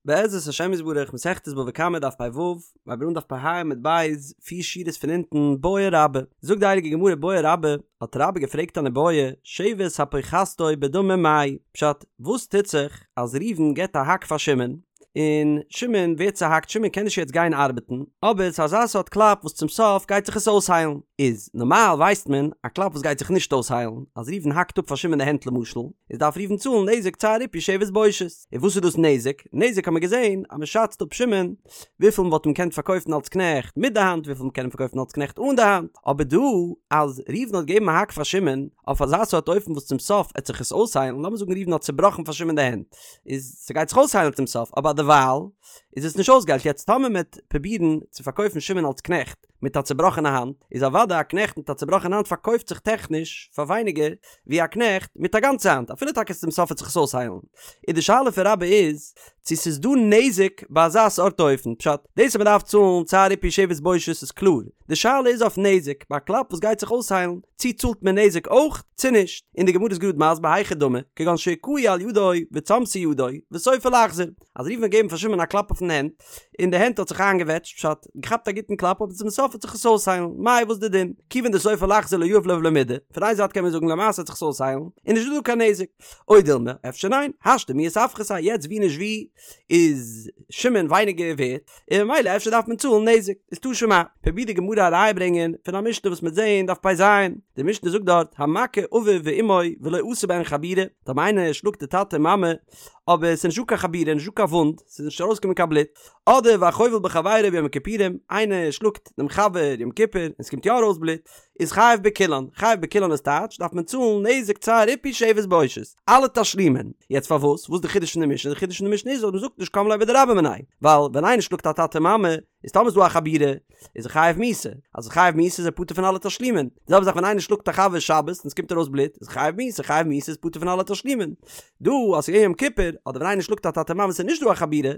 בעזרת השם יתברך מסכת בבא קמא דף פ"ו, מיר הייבן אן דף פ"ה עמוד ב', פיר שורות פון אונטן, בעי רבה, זאגט די הייליגע גמרא בעי רבה, האט רבה געפרעגט אן איבעיא, שבת הפוחתתו בדמים מאי, פשט, וואס טוט זיך אז ראובן געבט א האק פאר שמעון, און שמעון ווערט צוהאקט, שמעון קען נישט יעצט גיין ארבעטן, אבער ס'איז אזא סארט קלאפ וואס צום סוף גייט זיך עס אויסהיילן, איז נארמאל ווייסט מען, א קלאפ וואס גייט זיך נישט אויסהיילן, אז ראובן האקט אפ פאר שמעון די הענט למשל, איז דארף ראובן צאלן נזק צער ריפוי שבת בושת. און וואס איז דאס נזק? נזק האט מען געזען אז מען שאצט אפ שמעון וויפיל מען וואלט אים געקענט פארקויפן אלס קנעכט מיט די האנט וויפיל מען קען אים פארקויפן אלס קנעכט אן די האנט, אבער דא אז ראובן האט געגעבן א האק פאר שמעון אויף אזא סארט אופן וואס צום סוף עט זיך עס אויסהיילן, לאמיר זאגן ראובן האט צובראכן פאר שמעון די הענט, איז ס'גייט זיך אויסהיילן צום סוף, אבער דערווייל איז עס נישט אויסגעהיילט, יעצט טאמער מען וועט פרובירן צו פארקויפן שמעון אלס קנעכט מיט א צובראכענע האנט, איז אוודאי א קנעכט מיט א צובראכענע האנט פארקויפט זיך טעכניש פאר ווייניגער ווי א קנעכט מיט א גאנצע האנט, אפילו טאקע צום סוף וועט זיך עס אויסהיילן. איז די שאלה פון רבה איז, צו ס'איז דא נזק ביי אזא סארט אופן, פשט, דאס אז מ'דארף צאלן צער ריפוי שבת בושת איז קלאר, די שאלה איז אויף נזק, ביי א קלאפ וואס גייט זיך אויסהיילן, צו צאלט מען נזק אויך, צו נישט. און די גמרא איז גראד מסביר היכי דמי, כגון שהכהו על ידו וצמתה ידו, וסופה לחזור. אז ראובן האט געגעבן פאר שמעון א קלאפ אויפן הענט, און די הענט האט זיך איינגעוועטשט, פשט, געכאפט א גוטן קלאפ אבער צום סוף וועט זיך עס אויסהיילן, מאי וואס די דין? כיוון דסופה לחזור לא יהיב ליה ולא מידי, פון איין זייט קען מען זאגן למעשה וועט זיך עס אויסהיילן, און נישט דא דא קיין נזק. או דילמא, אפשר ניין, השתא מיהת אפחתיה, יעצט ווי נישט ווי איז שמעון ווייניגער ווערט, און ממילא אפשר דארף מען צאלן נזק. איז תא שמע, פרובירט די גמרא א ראיה ברענגען פון א משנה וואס מ'וועט זעהן דף פ"ז, די משנה זאגט דארט, המכה אביו ואמו ולא עשה בהן חבורה, טאמער איינער שלאגט די טאטע און מאמע, אבער ס'איז נישטא קיין חבורה, נישטא קיין וואונד, ס'איז נישט ארויסגעקומען קיין בלוט, אדער והחובל בחבירו ביום הכיפורים, איינער שלאגט דעם חבר יום כיפור און ס'קומט יא ארויס בלוט, איז חייב בכולן, חייב בכולן איז טייטש, דארף מען צאלן נזק צער ריפוי שבת בושת, אלע תשלומין. יעצט פארוואס? וואס איז די חידוש פון די משנה? די חידוש פון די משנה איז אז מ'זאגט נישט קם ליה בדרבה מיניה, ווייל ווען איינער שלאגט א טאטע מאמע, איז טאמער איז דא א חבורה, איז ער חייב מיתה, אז ער חייב מיתה איז ער פטור פון אלע תשלומין, די זעלבע זאך ווען איינער שלאגט א חבר שבת און עס קומט ארויס בלוט, איז חייב מיתה, חייב מיתה איז פטור פון אלע תשלומין. דא אז ס'איז געווען יום כיפור, אדער ווען איינער שלאגט א טאטע מאמע ס'איז נישט דא א חבורה,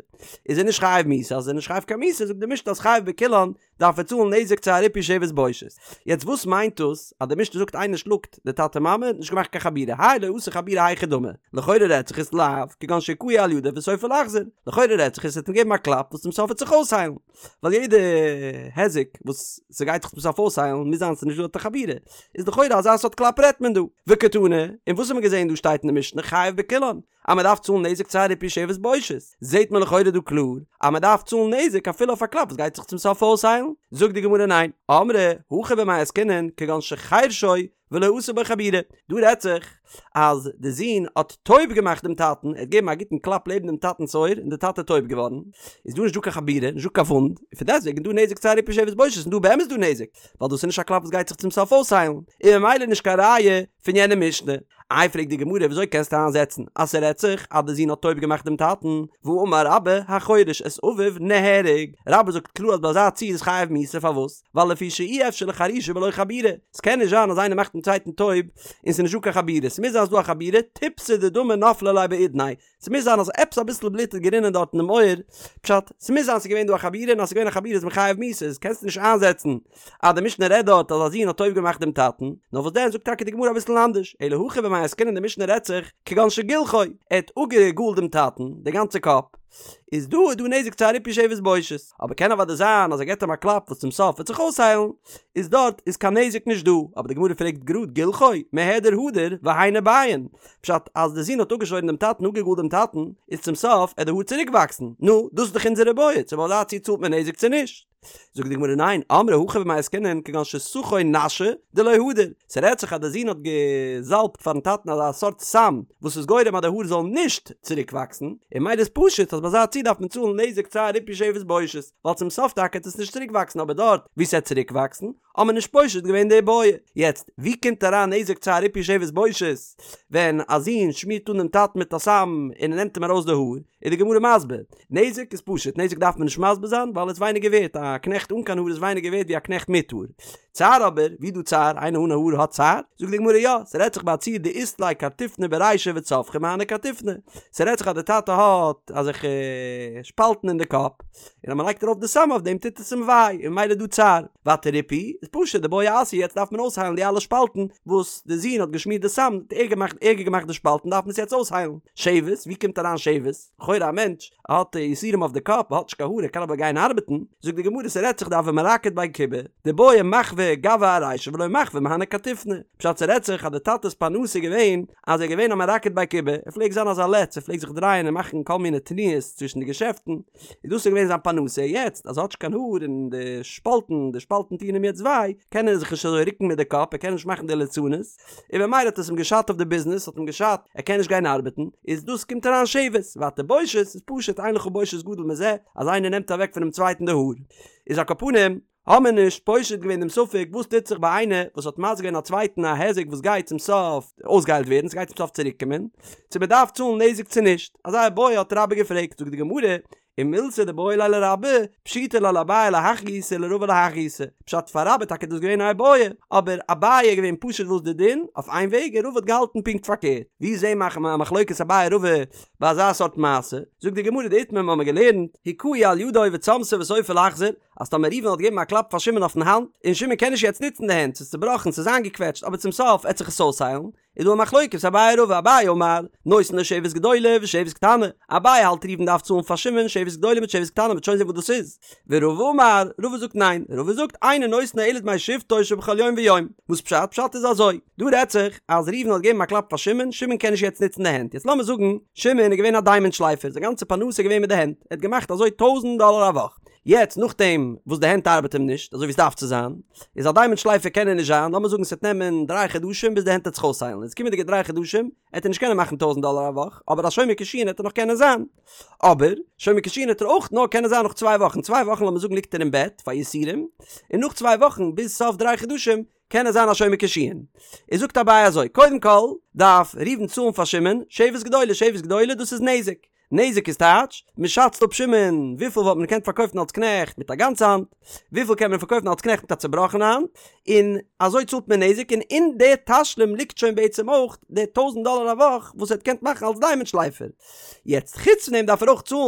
איז ער נישט חייב מיתה, אז ער איז נישט חייב קיין מיתה זאגט די משנה אז חייב בכולן דארף ער צאלן נזק צער ריפוי שבת בושת. יעצט וואס מיינט דאס אז די משנה זאגט איינער שלאגט די טאטע מאמע נישט געמאכט קיין חבורה, האי לא עשה חבורה היכי דמי, לכאורה רעדט זיך עס לאו כגון שהכהו על ידו וסופה לחזור, לכאורה רעדט זיך עס ער האט אים געגעבן א קלאפ וואס צום סוף וועט זיך אויסהיילן. ווייל יעדע היזק וואס ס'גייט זיך צום סוף אויסהיילן מוז זיין ס'איז נישט דא דארט א חבורה, איז לכאורה אזא סארט קלאפ רעדט מען דא. וקתני, און וואס האט מען געזען דא שטייט אין די משנה חייב בכולן, אז מ'דארף צאלן נזק צער ריפוי שבת בושת, זעט מען לכאורה דא קלאר אז מ'דארף צאלן נזק אפילו אויף א קלאפ וואס גייט זיך צום סוף אויסהיילן, זאגט די גמרא ניין, אמרי הכא במאי עסקינן כגון שחרשו ולא עשה בו חבורה, דא רעדט זיך אז די זון האט טויב געמאכט דעם טאטן, ער האט געגעבן א גוטן קלאפ לעבן דעם טאטנ'ס אויער און דער טאטע איז טויב געווארן, איז דא נישט דא קיין חבורה, נישט דא קיין וואונד, און פון דעסטוועגן איז דא נזק צער ריפוי שבת בושת און דא באמת דא נזק, ווייל דאס איז נישט א קלאפ וואס גייט זיך צום סוף אויסהיילן, און ממילא נישט קיין ראיה פון יענע משנה. איי פרעגט די גמרא וויאזוי קענסטו איינזעצן אז ס'רעדט זיך אז די זון האט טויב געמאכט דעם טאטן, והאמר רבה החורש את אביו נהרג, רבה זאגט קלאר אז ביי אזא ציור איז חייב מיתה פארוואס? ווייל לפי שאי אפשר לחרישה בלא חבורה, ס'קען נישט זיין אז איינער מאכט דעם צווייטן טויב און ס'איז נישטא קיין חבורה, ס'מוז זיין אז ס'דא א חבורה, טיפתא דדמא נפלה ליה באודניה, ס'מוז זיין אז עפעס אביסל בלוט איז גערינען דארט אינעם אויער, פשט, ס'מוז זיין ס'איז געווען דא א חבורה און אז ס'איז געווען א חבורה איז מען חייב מיתה, איז קענסטו נישט איינזעצן אז די משנה רעדט דארט אז א זון האט טויב געמאכט דעם טאטן, נאר וואס דען זאגט טאקע די גמרא אביסל אנדערש, אלא הכא במאי עסקינן די משנה רעדט זיך כגון שגילחו, ער האט אפגעגאלט דעם טאטן די גאנצע קאפ, איז דא איז דא נזק צער ריפוי שבת בושת, אבער קען אוודאי זיין אז ער געבט אים א קלאפ וואס צום סוף וועט זיך אויסהיילן, איז דארט איז קיין נזק נישט דא, אבער די גמרא פרעגט גראד גילחו, מהדר הדר, והיינו ביין, פשט אז די זון האט אפגעשוירן דעם טאטן אפגעגאלט דעם טאטן, איז צום סוף עט די האר צוריק וואקסן, נו, דאס איז דאך אונזער בעיא, צו ביי אזא ציור צאלט מען נזק צו נישט? זאגט די גמרא ניין, אמרי הכא במאי עסקינן כגון שסכו נשא דלא הדר, ס'רעדט זיך אז די זון האט געזאלבט פארן טאטן אזא סארט סם וואס איז גורם אז די האר זאלן נישט צוריק וואקסן, און ממילא איז פשוט אז ביי אזא ציור דארף מען צאלן נזק צער ריפוי שבת בושת, ווייל צום סוף טאקע עט עס נישט צוריק וואקסן אבער דארט וואו ס'עט צוריק וואקסן האט מען נישט פושט געווען די בעיא. יעצט ווי קומט אריין נזק צער ריפוי שבת בושת ווען א זון שמירט אן דעם טאטן מיט א סם און ער נעמט אים ארויס די האר? איז די גמרא מסביר, נזק איז פשוט, נזק דארף מען נישט מסביר זיין ווייל עס איז ווייניגער ווערט, א. א קנעכט אן קיין האר איז ווייניגער ווערט ווי א קנעכט מיט האר. צער אבער, ווי דא צער? איינער אן האר האט צער? זאגט די גמרא יא, ס'רעדט זיך ביי א ציור דאית ליה קרטופני ברישיה וצווחי מהני קרטופני, ס'רעדט זיך אז די טאטע האט אזעלכע שפאלטן אין די קאפ, און אז מ'לייגט ארויף די סם אויף דעם טוט עס אים וויי, און ממילא איז דא צער. ווייטער ריפוי איז פשוט דבעי אסיא יעצט דארף מען אויסהיילן די אלע שפאלטן וואס די זון האט געשמירט די סם האט ערגער געמאכט ערגער געמאכט די שפאלטן דארף מען עס יעצט אויסהיילן. שבת, ווי קומט אריין שבת? לכאורה א מענטש האט יסורים אויף די קאפ האט נישט קיין האר ער קען אבער גיין ארבעטן, זאגט די גמרא ס'רעדט זיך דהוה מרקיד בי כובי דבעי מחוי גוני ארישיה ולא מחוי מהני קרטופני, פשט ס'רעדט זיך אז די טאטע'ס פרנסה איז געווען אז ער איז געווען א מרקד בי כובי, ער פלעגט זיין אזא לץ ער פלעגט זיך דרייען און מאכן כל מיני תנועות צווישן די געשעפטן, איז דאס איז געווען זיין פרנסה, יעצט אז ער האט נישט קיין האר און די שפאלטן די שפאלטן טוען אים יעצט וויי, קען ער זיך נישט אזוי רוקן מיט די קאפ ער קען נישט מאכן די ליצנות, און במילא האט עס אים געשאדט אויף די ביזנעס, האט אים געשאדט, ער קען נישט גיין ארבעטן, איז דאס קומט אריין שבת, ווייטער בושת איז פשוט אין לך בושת גדול מזה, אז איינער נעמט אוועק פונעם צווייטן די האר. איז על כל פנים, האמיר נישט פושט געווען דעם ספק וואס טוט זיך ביי איינער וואס האט מזיק געווען א צווייטן א היזק וואס גייט צום סוף אויסגעהיילט ווערן, ס'גייט צום סוף צוריק קומען, צו מ'דארף צאלן נזק צו נישט, אזא איבעיא האט רבה געפרעגט, זאגט די גמרא, ומילתא דבעיא ליה לרבה, פשיטא ליה לאביי להך גיסא ולרבא להך גיסא, פשט פאר רבה טאקע דאס געווען א איבעיא, אבער אביי איז געווען פשוט וואס די דין, אויף איין וועג און רבא האט געהאלטן פונקט פארקערט, ווי זעהן מיר א מחלוקת אביי רבא ביי אזא סארט מעשה, זאגט די גמרא דאיתמר מ'האמיר געלערנט, הכהו על ידו וצמתה וסופה לחזור, אז טאמער ראובן האט געגעבן א קלאפ פאר שמעון אויפן האנט, און שמעון קען נישט יעצט נוצן די הענט, ס'איז צובראכן, ס'איז איינגעקוועטשט, אבער צום סוף עט זיך עס אויסהיילן, איז דא א מחלוקת אביי רבא אביי אמר נותן לו שבת גדולה ושבת קטנה אביי האלט ראובן דארף צאלן פאר שמעון שבת גדולה מיט שבת קטנה מ'וועט שוין זען וואס דאס איז ורבא אמר רבא זאגט ניין רבא זאגט אינו נותן לו אלא דמי שבתו שבכל יום ויום וואס פשט פשט איז אזוי דא רעדט זיך אז ראובן האט געגעבן א קלאפ פאר שמעון שמעון קען נישט יעצט נוצן די הענט יעצט לאמיר זאגן שמעון איז געווען א דיימאנט שלייפער זיין גאנצע פרנסה איז געווען מיט די הענט ער האט געמאכט אזוי טויזנט דאלער א וואך יעצט נאכדעם וואס די הענט ארבעט אים נישט אזוי ווי עס דארף צו זיין, איז א דיימאנט שלייפער קען ער נישט זיין, לאמיר זאגן ס'וועט נעמען דריי חדשים ביז די הענט וועט זיך אויסהיילן, איז קומענדיגע דריי חדשים עט ער נישט קענען מאכן טויזנט דאלער א וואך, אבער א שומר קישואין עט ער נאך קענען זיין. אבער, שומר קישואין עט ער אויך נאר קענען זיין נאך צוויי וואכן, צוויי וואכן לאמיר זאגן ליגט ער אין בעט פאר יסורים, און נאך צוויי וואכן ביז סוף דריי חדשים קען ער זיין א שומר קישואין. איז זאגט אביי אזוי, קודם כל דארף ראובן צאלן פאר שמעון שבת גדולה, שבת גדולה דאס איז נזק, נזק איז טייטש, מען שאצט אפ שמעון וויפיל וואלט מען געקענט פארקויפן אלס קנעכט מיט א גאנצע האנט, וויפיל קען מען פארקויפן אלס קנעכט מיט א צובראכענע האנט, און אזוי צאלט מען נזק, און אין די תשלום ליגט שוין בעצם אויך די טויזנט דאלער א וואך וואס ער האט געקענט מאכן אלס דיימאנט שלייפער. יעצט חוץ פון דעם דארף ער אויך צאלן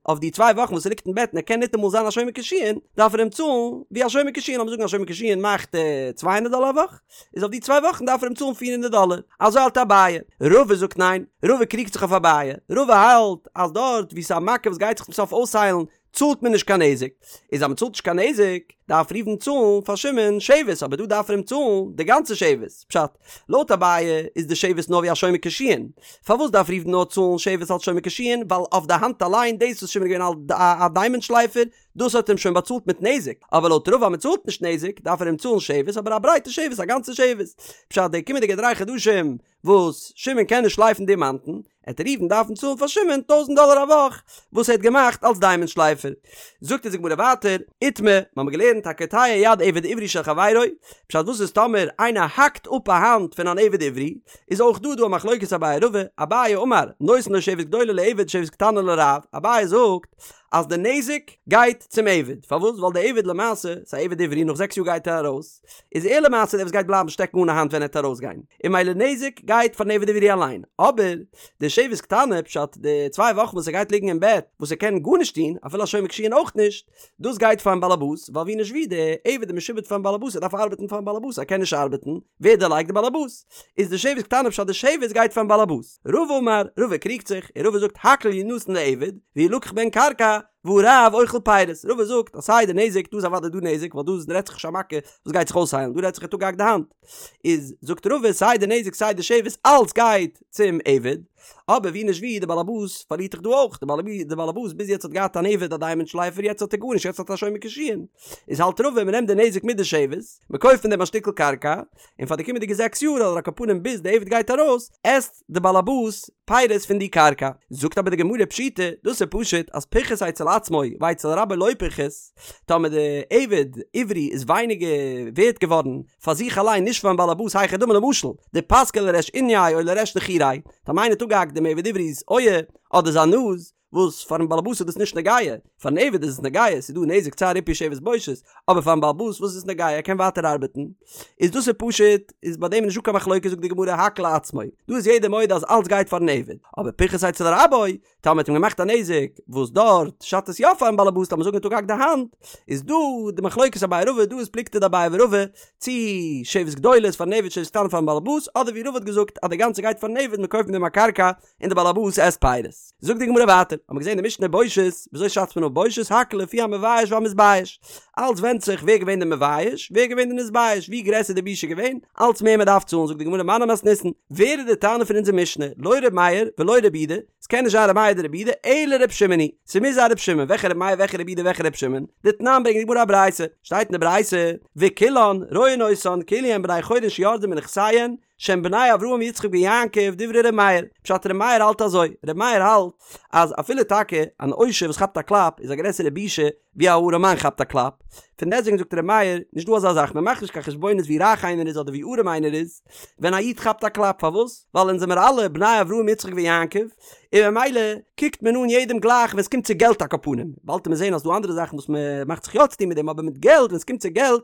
אויף די צוויי וואכן וואס ער ליגט אין בעט און ער קען ניטאמאל זיין א שומר קישואין, דארף ער אים צאלן ווי א שומר קישואין, לאמיר זאגן א שומר קישואין מאכט צוויי הונדערט דאלער א וואך, איז אויף די צוויי וואכן דארף ער אים צאלן פיר הונדערט דאלער. אזוי האלט אביי. רבא זאגט ניין, רבא קריגט זיך אויף אביי. רבא האלט אז דארט וואו ס'איז א מכה וואס גייט זיך צום סוף אויסהיילן צאלט מען נישט קיין נזק. איז אז מ'צאלט נישט קיין נזק דארף ראובן צאלן פאר שמעון שבת אבער דא דארף ער אים צאלן די גאנצע שבת. פשט, לויט אביי איז די שבת נאר ווי א שומר קישואין. פארוואס דארף ראובן נאר צאלן שבת אלס שומר קישואין? ווייל אויף די האנט אליין דאס וואס שמעון איז געווען א דיימאנט שלייפער דאס האט אים שוין באצאלט מיט נזק, אבער לויט רבא אז מען צאלט נישט נזק דארף ער אים צאלן שבת אבער א ברייטע שבת א גאנצע שבת, פשט די קומענדיגע דריי חדשים וואס שמעון קען נישט שלייפן דימאנטן, עט ראובן דארפן צאלן פאר שמעון טויזנט דאלער א וואך וואס ער האט געמאכט אלס דיימאנט שלייפער. זאגט אונז די גמרא ווייטער, איתמר, מיר האבן געלערנט הקוטע יד עבד עברי של חברו, פשט וואס איז טאמער איינער האקט אפ א האנט פון אן עבד עברי, איז אויך דא דא א מחלוקת אביי רבא, אביי אמר, נותן לו שבת גדולה לעבד שבת קטנה לרב, אביי זאגט, אז די נזק גייט צום עבד, פארוואס? ווייל די עבד למעשה, ס'איז א עבד עברי, נאך זעקס יאר גייט ער ארויס, איז ער למעשה דער וואס גייט בלייבן שטעקן אן א האנט ווען ער וועט ארויסגיין, און ממילא נזק גייט פארן עבד עברי אליין, אבער די שבת קטנה, פשט די צוויי וואכן וואס ער גייט ליגן אין בעט, וואס ער קען גארנישט טון, אפילו א שומר קישואין אויך נישט, דאס גייט פארן באלעבאס, ווייל ווי נישט ווי, די עבד איז משועבד פארן באלעבאס, ער דארף ארבעטן פארן באלעבאס, ער קען נישט ארבעטן, ווער דערלייגט? די באלעבאס. איז די שבת קטנה פשט די שבת גייט פארן באלעבאס. רבא אמר, רבא קריגט זיך, און רבא זאגט הכל ינתן לעבד, וילקח בהן קרקע, והרב אוכל פירות. רבא זאגט אז סיי די נזק, דא איז אוודאי דא נזק, ווייל דא רעדט זיך נישט א מכה וואס גייט זיך אויסהיילן, דא רעדט זיך ער האט אפגעהאקט די האנט. איז זאגט רבא סיי די נזק סיי די שבת אלץ גייט צום עבד, אבער ווי נישט ווי די באלעבאס פארלירט דאך דא אויך, די באלעבאס ביז יעצט האט געהאט אן עבד א דיימאנט שלייפער יעצט האט ער גארנישט יעצט האט ער א שומר קישואין, איז האלט רבא מען נעמט די נזק מיט די שבת, מען קויפט פון דעם א שטיקל קרקע, און פאר די קומענדיגע זעקס יאר אדער על כל פנים ביז די עבד גייט ארויס, עסט די באלעבאס פירות פון די קרקע. זאגט אבער די גמרא פשיטא, דאס איז פשוט אז פחת אצל עצמו ואצל רבו לא פחת, טאמער די עבד עברי איז ווייניגער ווערט געווארן פאר זיך אליין נישט פארן באלעבאס היכי דמי למשל דפסקיה לריש אוניה או לריש נחיריה, טאמער איינער האט אפגעהאקט דעם עבד עברי'ס אויער אדער זיין נאז, וואס פארן באלעבאס איז דאס נישט נוגע, פארן עבד איז עס נוגע, ס'איז דא נזק צער ריפוי שבת בושת, אבער פארן באלעבאס וואס איז עס נוגע ער קען ווייטער ארבעטן, איז דאס איז פשוט, איז ביי דעם נישטא קיין מחלוקת זאגט די גמרא הכל לעצמו, דא איז יעדער מודה אז אלץ גייט פארן עבד, אבער פיחת אצל רבו, טאמער מ'האט אים געמאכט א נזק וואס דארט שאדט עס יא פארן באלעבאס לאמיר זאגן ער האט אפגעהאקט די האנט, איז דא די מחלוקת אביי רבא דא איז פלוגתא דאביי ורבא צי שבת גדולה איז פארן עבד שבת קטנה פארן באלעבאס אדער ווי רבא האט געזאגט אז די גאנצע גייט פארן עבד מען קויפט מיט דעם א קרקע און די באלעבאס עסט פירות. זאגט די גמרא ווייטער, האט מען געזען די משנה בושת, וויאזוי שאצט מען אפ בושת, הכל לפי המבייש והמתבייש, אלץ ווענדט זיך ווער געווען די מבייש, ווער געווען די נתבייש, ווי גרעסער די בושה געווען, אלץ מער מען דארף צאלן, זאגט די גמרא מני מתניתין, ווער איז די תנא פון אונזער משנה, לא ר' מאיר ולא ר' יהודה, ס'קען נישט זיין ר' מאיר אדער ר' יהודה, אלא ר' שמעון היא, ס'מוז זיין ר' שמעון, וועלכע ר' מאיר וועלכע ר' יהודה וועלכע ר' שמעון, דתנן ברענגט די גמרא א ברייתא, שטייט אין די ברייתא, וכולן רואין אותן כאילו הן בני חורין שירדו מנכסיהן, שהן בני אברהם יצחק ויעקב דברי ר' מאיר, פשט ר' מאיר האלט אזוי, ר' מאיר האלט אז אפילו טאקע אן עושר וואס כאפט א קלאפ איז א גרעסערע בושה ווי א ארעמאן כאפט א קלאפ, פון דעסטוועגן זאגט ר' מאיר, נישט דא אזא זאך, מען מאכט נישט קיין חשבונות ווי רייך איינער איז אדער ווי ארעם איינער איז, ווען א איד כאפט א קלאפ, פארוואס? ווייל אונז זעמער אלע בני אברהם יצחק ויעקב, און ממילא קוקט מען אן יעדעם גלייך ווען עס קומט צו געלט על כל פנים, באלד וועט מען זען אז ס'דא אנדערע זאכן וואס מען מאכט זיך יא צוטון מיט דעם אבער מיט געלט ווען עס קומט צו געלט,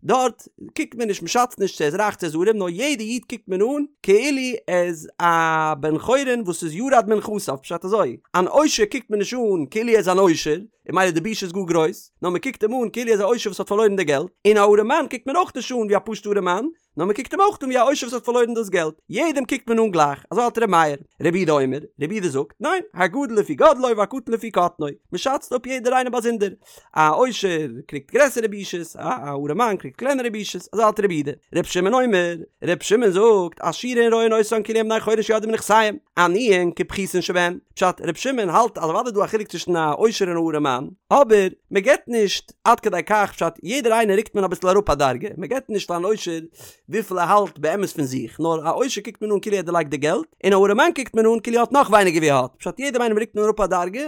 דארט קוקט מען נישט מ'שאצט נישט צו ער איז רייך צו ער איז ארעם נאר יעדע איד קוקט מען אן כאילו ער איז א בן חורין וואס איז ירד מנכסיו פשט אזוי אן עושר קוקט מען נישט אן כאילו ער איז אן עושר און ממילא די בושה איז גאר גרויס נאר מ'קוקט אים אן כאילו ער איז א עושר וואס האט פארלוירן די געלט און א ארעמאן קוקט מען אויך נישט אן ווי א פשוטע ארעמאן נאר מען קוקט אים אויך אן ווי א עושר וואס האט פארלוירן דאס געלט, יעדעם קוקט מען אן גלייך, אזוי האלט ר' מאיר. רבי יהודה אומר, רבי יהודה זאגט, ניין, הגדול לפי גודלו והקטן לפי קטנו, מען שאצט אפ יעדער איינער באזונדער, א עושר קריגט גרעסערע בושות, א ארעמאן קריגט קלענערע בושות, אזוי האלט רבי יהודה. רבי שמעון אומר, רבי שמעון זאגט, עשירין רואין אותן כאילו הן בני חורין שירדו מנכסיהם, עניים כפחותין שבהן, פשט, רבי שמעון האלט אז אוודאי איז דא א חילוק צווישן א עושר און א ארעמאן, אבער מען געבט נישט עד כדי כך פשט יעדער איינער רוקט מען אביסל אראפ א דרגה, מען געבט נישט פארן עושר וויפיל ער האלט באמת פון זיך, נאר א עושר קוקט מען אן כאילו ער האט דערלייגט די געלט, און א ארעמאן קוקט מען אן כאילו ער האט נאך ווייניגער ווי ער האט, פשט יעדעם איינעם רוקט מען אראפ א דרגה,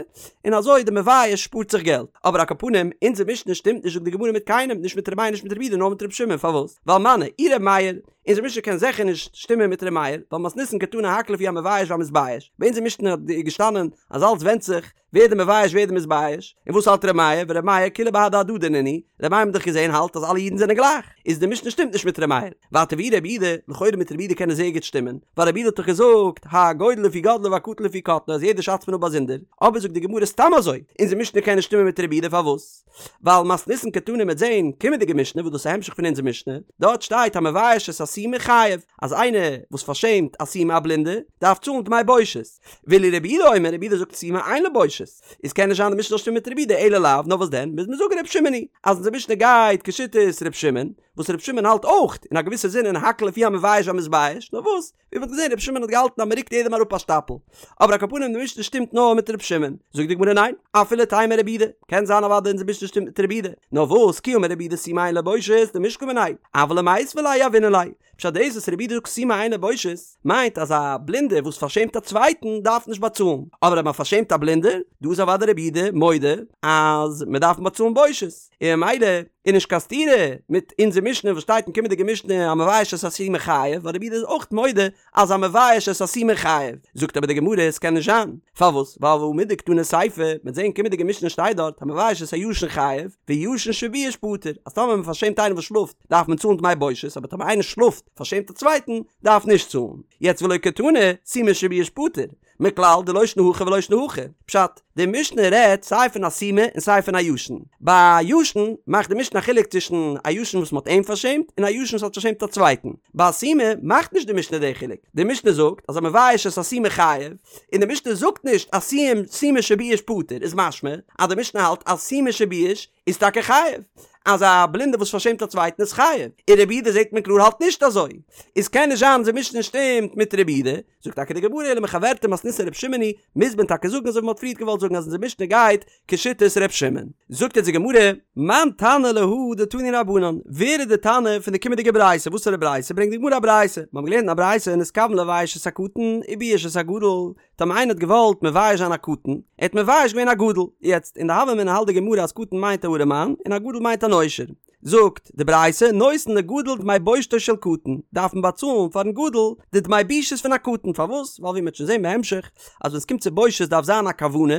און אזוי די מבייש שפארט זיך געלט. אבער על כל פנים, אונזער משנה שטימט נישט זאגט די גמרא מיט קיינעם, נישט מיט ר' מאיר נישט מיט ר' יהודה נאר מיט ר' שמעון, פארוואס? ווייל מני, אי ר' מאיר, אונזער משנה קען זיכער נישט שטימען מיט ר' מאיר, ווייל מתניתין קתני הכל לפי המבייש והמתבייש, ביי אונזער משנה האט געשטאנען אז אלץ ווענדט זיך ווער די מבייש ווער די מתבייש, און וואס האלט ר' מאיר, ור' מאיר כולהו בהדי הדדי נינהו, ר' מאיר האט מען דאך געזען האלט אז אלע אידן זענען גלייך, איז די משנה שטימט נישט מיט ר' מאיר, ווייטער ואי ר' יהודה, לכאורה מיט ר' יהודה קען עס זייער גוט שטימען, ווייל ר' יהודה האט דאך געזאגט הגודל לפי גודלו והקטן לפי קטנו אז יעדער שאצט מען אפ באזונדער, אבער זאגט די גמרא סתם אזוי, אונזער משנה קען נישט שטימען מיט ר' יהודה פארוואס? ווייל מתניתין קתני מ'עט זעהן קומענדיגע משנה וואס דאס איז א המשך פון אונזער משנה, דארט שטייט המבייש את הסומא חייב, אז איינער וואס פארשעמט א סומא א בלינדע, דארף צאלן דמי בושת. ואילו רבי יהודה אומר, רבי יהודה זאגט סומא אין לו בושת, איז קען נישט זיין די משנה זאל שטימען מיט רבי יהודה אלא לאו, נאר וואס דען, מוז מען זאגן רבי שמעון היא, אז אונזער משנה גייט כשיטת רבי שמעון, וואס רבי שמעון האלט אויך, אין א געוויסע זין אין הכל לפי המבייש והמתבייש, נאר וואס, ווי מ'האט געזען רבי שמעון האט געהאלטן אז מ'רוקט יעדעם אראפ א שטאפל. אבער על כל פנים די משנה שטימט נאר מיט רבי שמעון. זאגט די גמרא ניין, אפילו תימא רבי יהודה, קען זיין אוודאי אונזער משנה שטימט מיט רבי יהודה, נאר וואס, כי אמר רבי יהודה סומא אין לו בושת, דמישקל מיניה, אבל למיתבה ליה יהבינן ליה. פשט דאס וואס רבי יהודה זאגט סומא אין לו בושת, מיינט אז א בלינדער וואס פארשעמט א צווייטן דארף נישט באצאלן, אבער אויב מ'פארשעמט א בלינדער, דא איז אוודאי רבי יהודה מודה אז מ'דארף באצאלן בושת, און ממילא איז נישט קיין סתירה מיט אונזער משנה וואס שטייט אין קומענדיגע משנה המבייש את הסומא חייב, ווייל רבי יהודה איז אויך מודה אז המבייש את הסומא חייב, זאגט אבער די גמרא עס קען נישט זיין, פארוואס? ווייל והא מדקתני סיפא, מ'עט זען קומענדיגע משנה שטייט דארט המבייש את הישן חייב, וישן שבייש פטור, אז טאמער מען פארשעמט איינעם וואס שלאפט דארף מען צאלן דמי בושת, אבער טאמער איינער שלאפט פארשעמט א צווייטן דארף נישט צאלן, יעצט ולא קתני סומא שבייש פטור, מכלל דלא שנא הכא ולא שנא הכא. פשט, די משנה רעדט סיי פון א סומא און סיי פון א ישן. ביי א ישן מאכט די משנה א חילוק צווישן א ישן וואס מ'האט אים פארשעמט און א ישן וואס האט פארשעמט א צווייטן. ביי א סומא מאכט נישט די משנה די חילוק. די משנה זאגט אז המבייש את הסומא חייב, און די משנה זאגט נישט אז סומא שבייש פטור איז משמע אז די משנה האלט אז סומא שבייש איז טאקע חייב. אז א בלינדער וואס פארשעמט א צווייטן איז חייב. און רבי יהודה זעט מען קלאר האלט נישט אזוי. איז קען נישט זיין אז די משנה שטימט מיט רבי יהודה. זאגט טאקע די גמרא אלא מחוורתא מתניתין ר' שמעון היא, מוז מען טאקע זאגן אזוי ווי מען האט פריערט געוואלט זאגן אז אונזער משנה גייט כשיטת ר' שמעון. זאגט אונז די גמרא, מאן תנא להא דתנו רבנן, ווער איז די תנא פון די קומענדיגע ברייתא, וואסערע ברייתא, ברענגט די גמרא א ברייתא, מיר האבן געלערנט אין א ברייתא נתכוון לבייש את הקטן ובייש את הגדול, טאמער איינער האט געוואלט מבייש זיין א קטן, ער האט מבייש געווען א גדול, יעצט אין די הוה אמינא האלט די גמרא אז קטן מיינט א ארעמאן און א גדול מיינט אן עושר. זאגט די ברייתא, נותן לגדול דמי בושתו של קטן, דארף מען באצאלן פארן גדול די דמי בושות פון א קטן, פארוואס? ווייל ווי מ'וועט שוין זען בהמשך, אז ווען ס'קומט צו בושות דארף זיין א כוונה,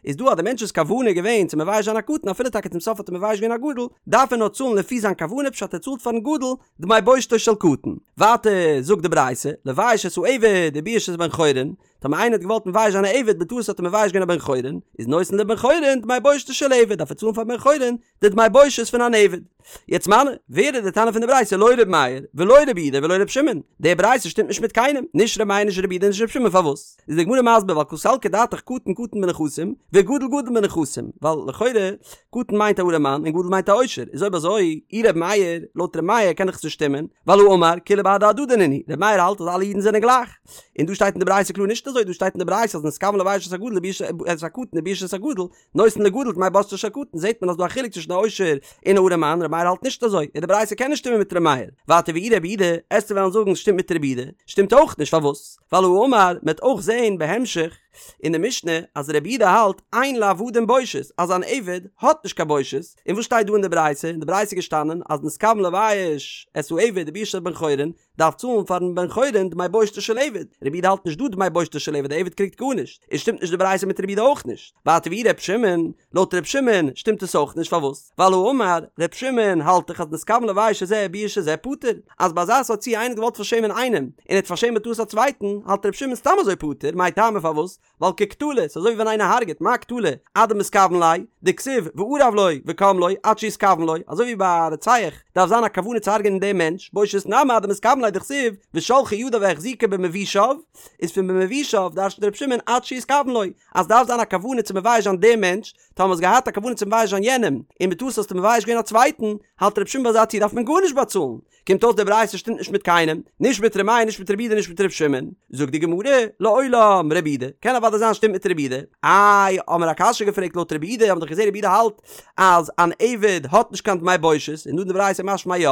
איז דא אז די מענטש'ס כוונה איז געווען צו מבייש זיין א קטן אפילו טאקע צום סוף האט ער מבייש געווען א גדול, דארף ער נאר צאלן לפי זיין כוונה פשט ער צאלט פארן גדול דמי בושתו של קטן. ווייטער זאגט די ברייתא, לבייש את העבד ובייש את בן חורין, טאמער איינער האט געוואלט מבייש זיין א עבד בטעות האט ער מבייש געווען א בן חורין, איז נותן לבן חורין דמי בושתו של עבד, דארף ער צאלן פאר בן חורין די דמי בושת פון אן עבד. יעצט מני, ווער איז די תנא פון די ברייתא לא ר' מאיר, ולא ר' יהודה ולא ר' שמעון? די ברייתא שטימט נישט מיט קיינעם, נישט ר' מאיר נישט ר' יהודה נישט ר' שמעון פארוואס? איז די גמרא מסביר ווייל קא סלקא דעתך קטן קטן בנכסים, וגדול גדול בנכסים, ווייל לכאורה קטן מיינט א ארעמאן און גדול מיינט א עושר, איז אויב אזוי אי ר' מאיר, לויט ר' מאיר קען דאך עס נישט שטימען, ווייל האמר כולהו בהדי הדדי נינהו, ר' מאיר האלט אז אלע אידן זענען גלייך. און דא שטייט אין די ברייתא קלאר נישט אזוי, דא שטייט אין די ברייתא אז נתכוון לבייש את הגדול ובייש את הקטן ובייש את הגדול, נותן לגדול דמי בושתו של קטן, זעט מען אז דא א חילוק צווישן א עושר און א ארעמאן, ר' מאיר האלט נישט אזוי, און די ברייתא קען נישט שטימען מיט ר' מאיר. ווייטער ואי רבי יהודה, עסטו וועלן זאגן ס'שטימט מיט רבי יהודה, שטימט אויך נישט, פארוואס? ווייל האמר, מ'עט אויך זען בהמשך אין די משנה אז רבי יהודה האלט אין לעבדים בושת, אז אן עבד האט נישט קיין בושת, און וואס שטייט דא אין די ברייתא? אין די ברייתא איז געשטאנען אז נתכוון לבייש את העבד ובייש את בן חורין, דארף צאלן פארן בן חורין דמי בושתו של עבד, רבי יהודה האלט נישט דא דמי בושתו של עבד, די עבד קריגט גארנישט, איז שטימט נישט די ברייתא מיט רבי יהודה אויך נישט, ווייטער ואי ר' שמעון, לויט ר' שמעון שטימט עס אויך נישט פארוואס? ווייל האמר ר' שמעון האלט דאך אז נתכוון לבייש את זה ובייש את זה פטור, אז ביי אזא סארט ציור איינער האט געוואלט פארשעמען איינעם און ער האט פארשעמט בטעות א צווייטן, האלט ר' שמעון סתם אזוי פטור, מאי טעמא פארוואס? ווייל כקטלא, ס'איז אזוי ווי ווען איינער הרג'עט, מה קטלא, עד דמתכוון ליה, דכתיב וארב לו וקם לו, עד שיתכוון לו, אזוי ווי ביי א רוצח דארף זיין א כוונה צו הרג'ענען דעם מענטש, בושת נמי עד דמתכוון ליה דכתיב ושלחה ידיו והחזיקו במבושיו, איז פון במבושיו דרש'נט ר' שמעון עד שיתכוון לו, אז דארף זיין א כוונה צו מבייש זיין דעם מענטש, טאמער האסט געהאט א כוונה צו מבייש זיין יענעם, און בטעות האסטו מבייש געווען א צווייטן, האלט ר' שמעון ביי אזא ציור דארף מען גארנישט באצאלן, קומט אויס די ברייתא שטימט נישט מיט קיינעם, נישט מיט ר' מאיר נישט מיט רבי יהודה נישט מיט ר' שמעון, זאגט די גמרא, לעולם רבי יהודה, קען אוודאי זיין שטימט מיט רבי יהודה, איי האמער א קשיא געפרעגט לויט רבי יהודה, האמער דאך געזען רבי יהודה האלט אז אן עבד האט נישט קיין דמי בושת, און דא אין די ברייתא משמע יא,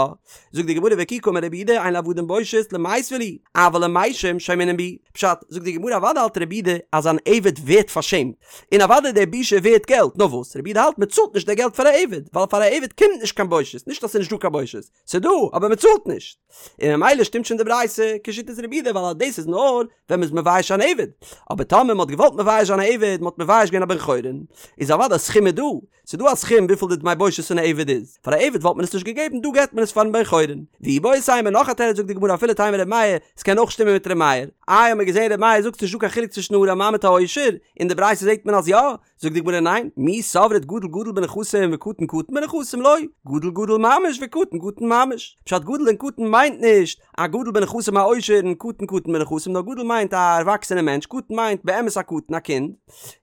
זאגט די גמרא וכי קאמר רבי יהודה אין לעבדים בושת למיתבא להו, אבל למתים שיימינן בהו, פשט, זאגט די גמרא אוודאי האלט רבי יהודה אז אן עבד ווערט פארשעמט, און אוודאי די בושה ווערט געלט, נאר וואס רבי יהודה האלט מען צאלט נישט די געלט פאר א עבד, ווייל פאר א עבד קומט נישט קיין בושת, נישט אז ס'איז נישט דא קיין בושת, ס'איז דא, אבער מ'צאלט נישט. און ממילא שטימט שוין די ברייתא כשיטת רבי יהודה ווייל אז דאס איז נאר ווען מ'איז מבייש אן עבד. אבער טאמער מ'האט געוואלט מבייש זיין א עבד, מ'האט מבייש געווען א בן חורין, איז אוודאי א סכום איז דא. ס'איז דא א סכום וויפיל די דמי בושת פון א עבד איז. פאר א עבד וואלט מען עס נישט געגעבן, דא געבט מען עס פארן בן חורין. ואיבעית אימא נאך א תירוץ זאגט די גמרא אפילו תימא ר' מאיר, ס'קען אויך שטימען מיט ר' מאיר. איי האמיר געזען ר' מאיר זאגט ס'נישט דא קיין חילוק צווישן ארעמאן מיט א עושר, אין די ברייתא זעט מען אז יא, זאגט די גמרא ניין, מי סברת גדול גדול בנכסים וקטן קטן בנכסים לא, גדול גדול ממש וקטן קטן ממש, פשט גדול און קטן מיינט נישט א גדול בנכסים א עושר און קטן קטן בנכסים נאר גדול מיינט א ערוואקסענע מענטש קטן מיינט באמת א קטן א קינד,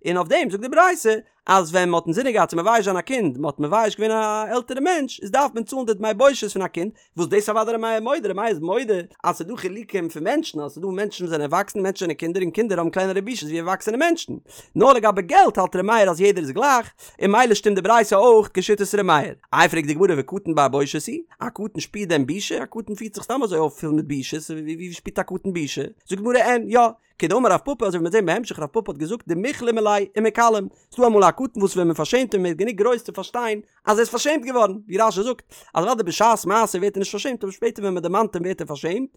און אויף דעם זאגט די ברייתא אז ווען מען האט אינזינען געהאט צו מבייש זיין א קינד מען האט מבייש געווען א עלטערע מענטש איז דארף מען צאלן די דמי בושת פון א קינד, וואס דאס אוודאי ר' מאיר מודה, ר' מאיר איז מודה אז ס'איז דא חילוקים פון מענטשן, אז ס'איז דא מענטשן וואס זענען ערוואקסן, מענטשן זענען קינדער און קינדער האבן קלענערע בושות ווי ערוואקסענע מענטשן. נאר לגבי געלט האלט ר' מאיר אז יעדער איז גלייך, און ממילא שטימט די ברייתא אויך כשיטת ר' מאיר. איי פרעגט די גמרא וקטן בר בושת הוא? א קטן שפירט דען בושה? א קטן פירט זיך סתם אזוי אויף פול מיט בושות, ווי שפירט א קטן בושה? זאגט די גמרא אין, יא, כדאמר רב פפא אזוי ווי מ'וועט זען בהמשך רב פפא האט געזאגט דמיכלמו ליה ומכלם, ס'דא אמאל א קטן וואס ווען מ'פארשעמט אים ווערט גענוג גרויס צו פארשטיין אז ער איז פארשעמט געווארן, ווי רש"י זאגט אז אוודאי בשעת מעשה ווערט ער נישט פארשעמט אבער שפעטער ווען מ'דערמאנט אים ווערט ער פארשעמט,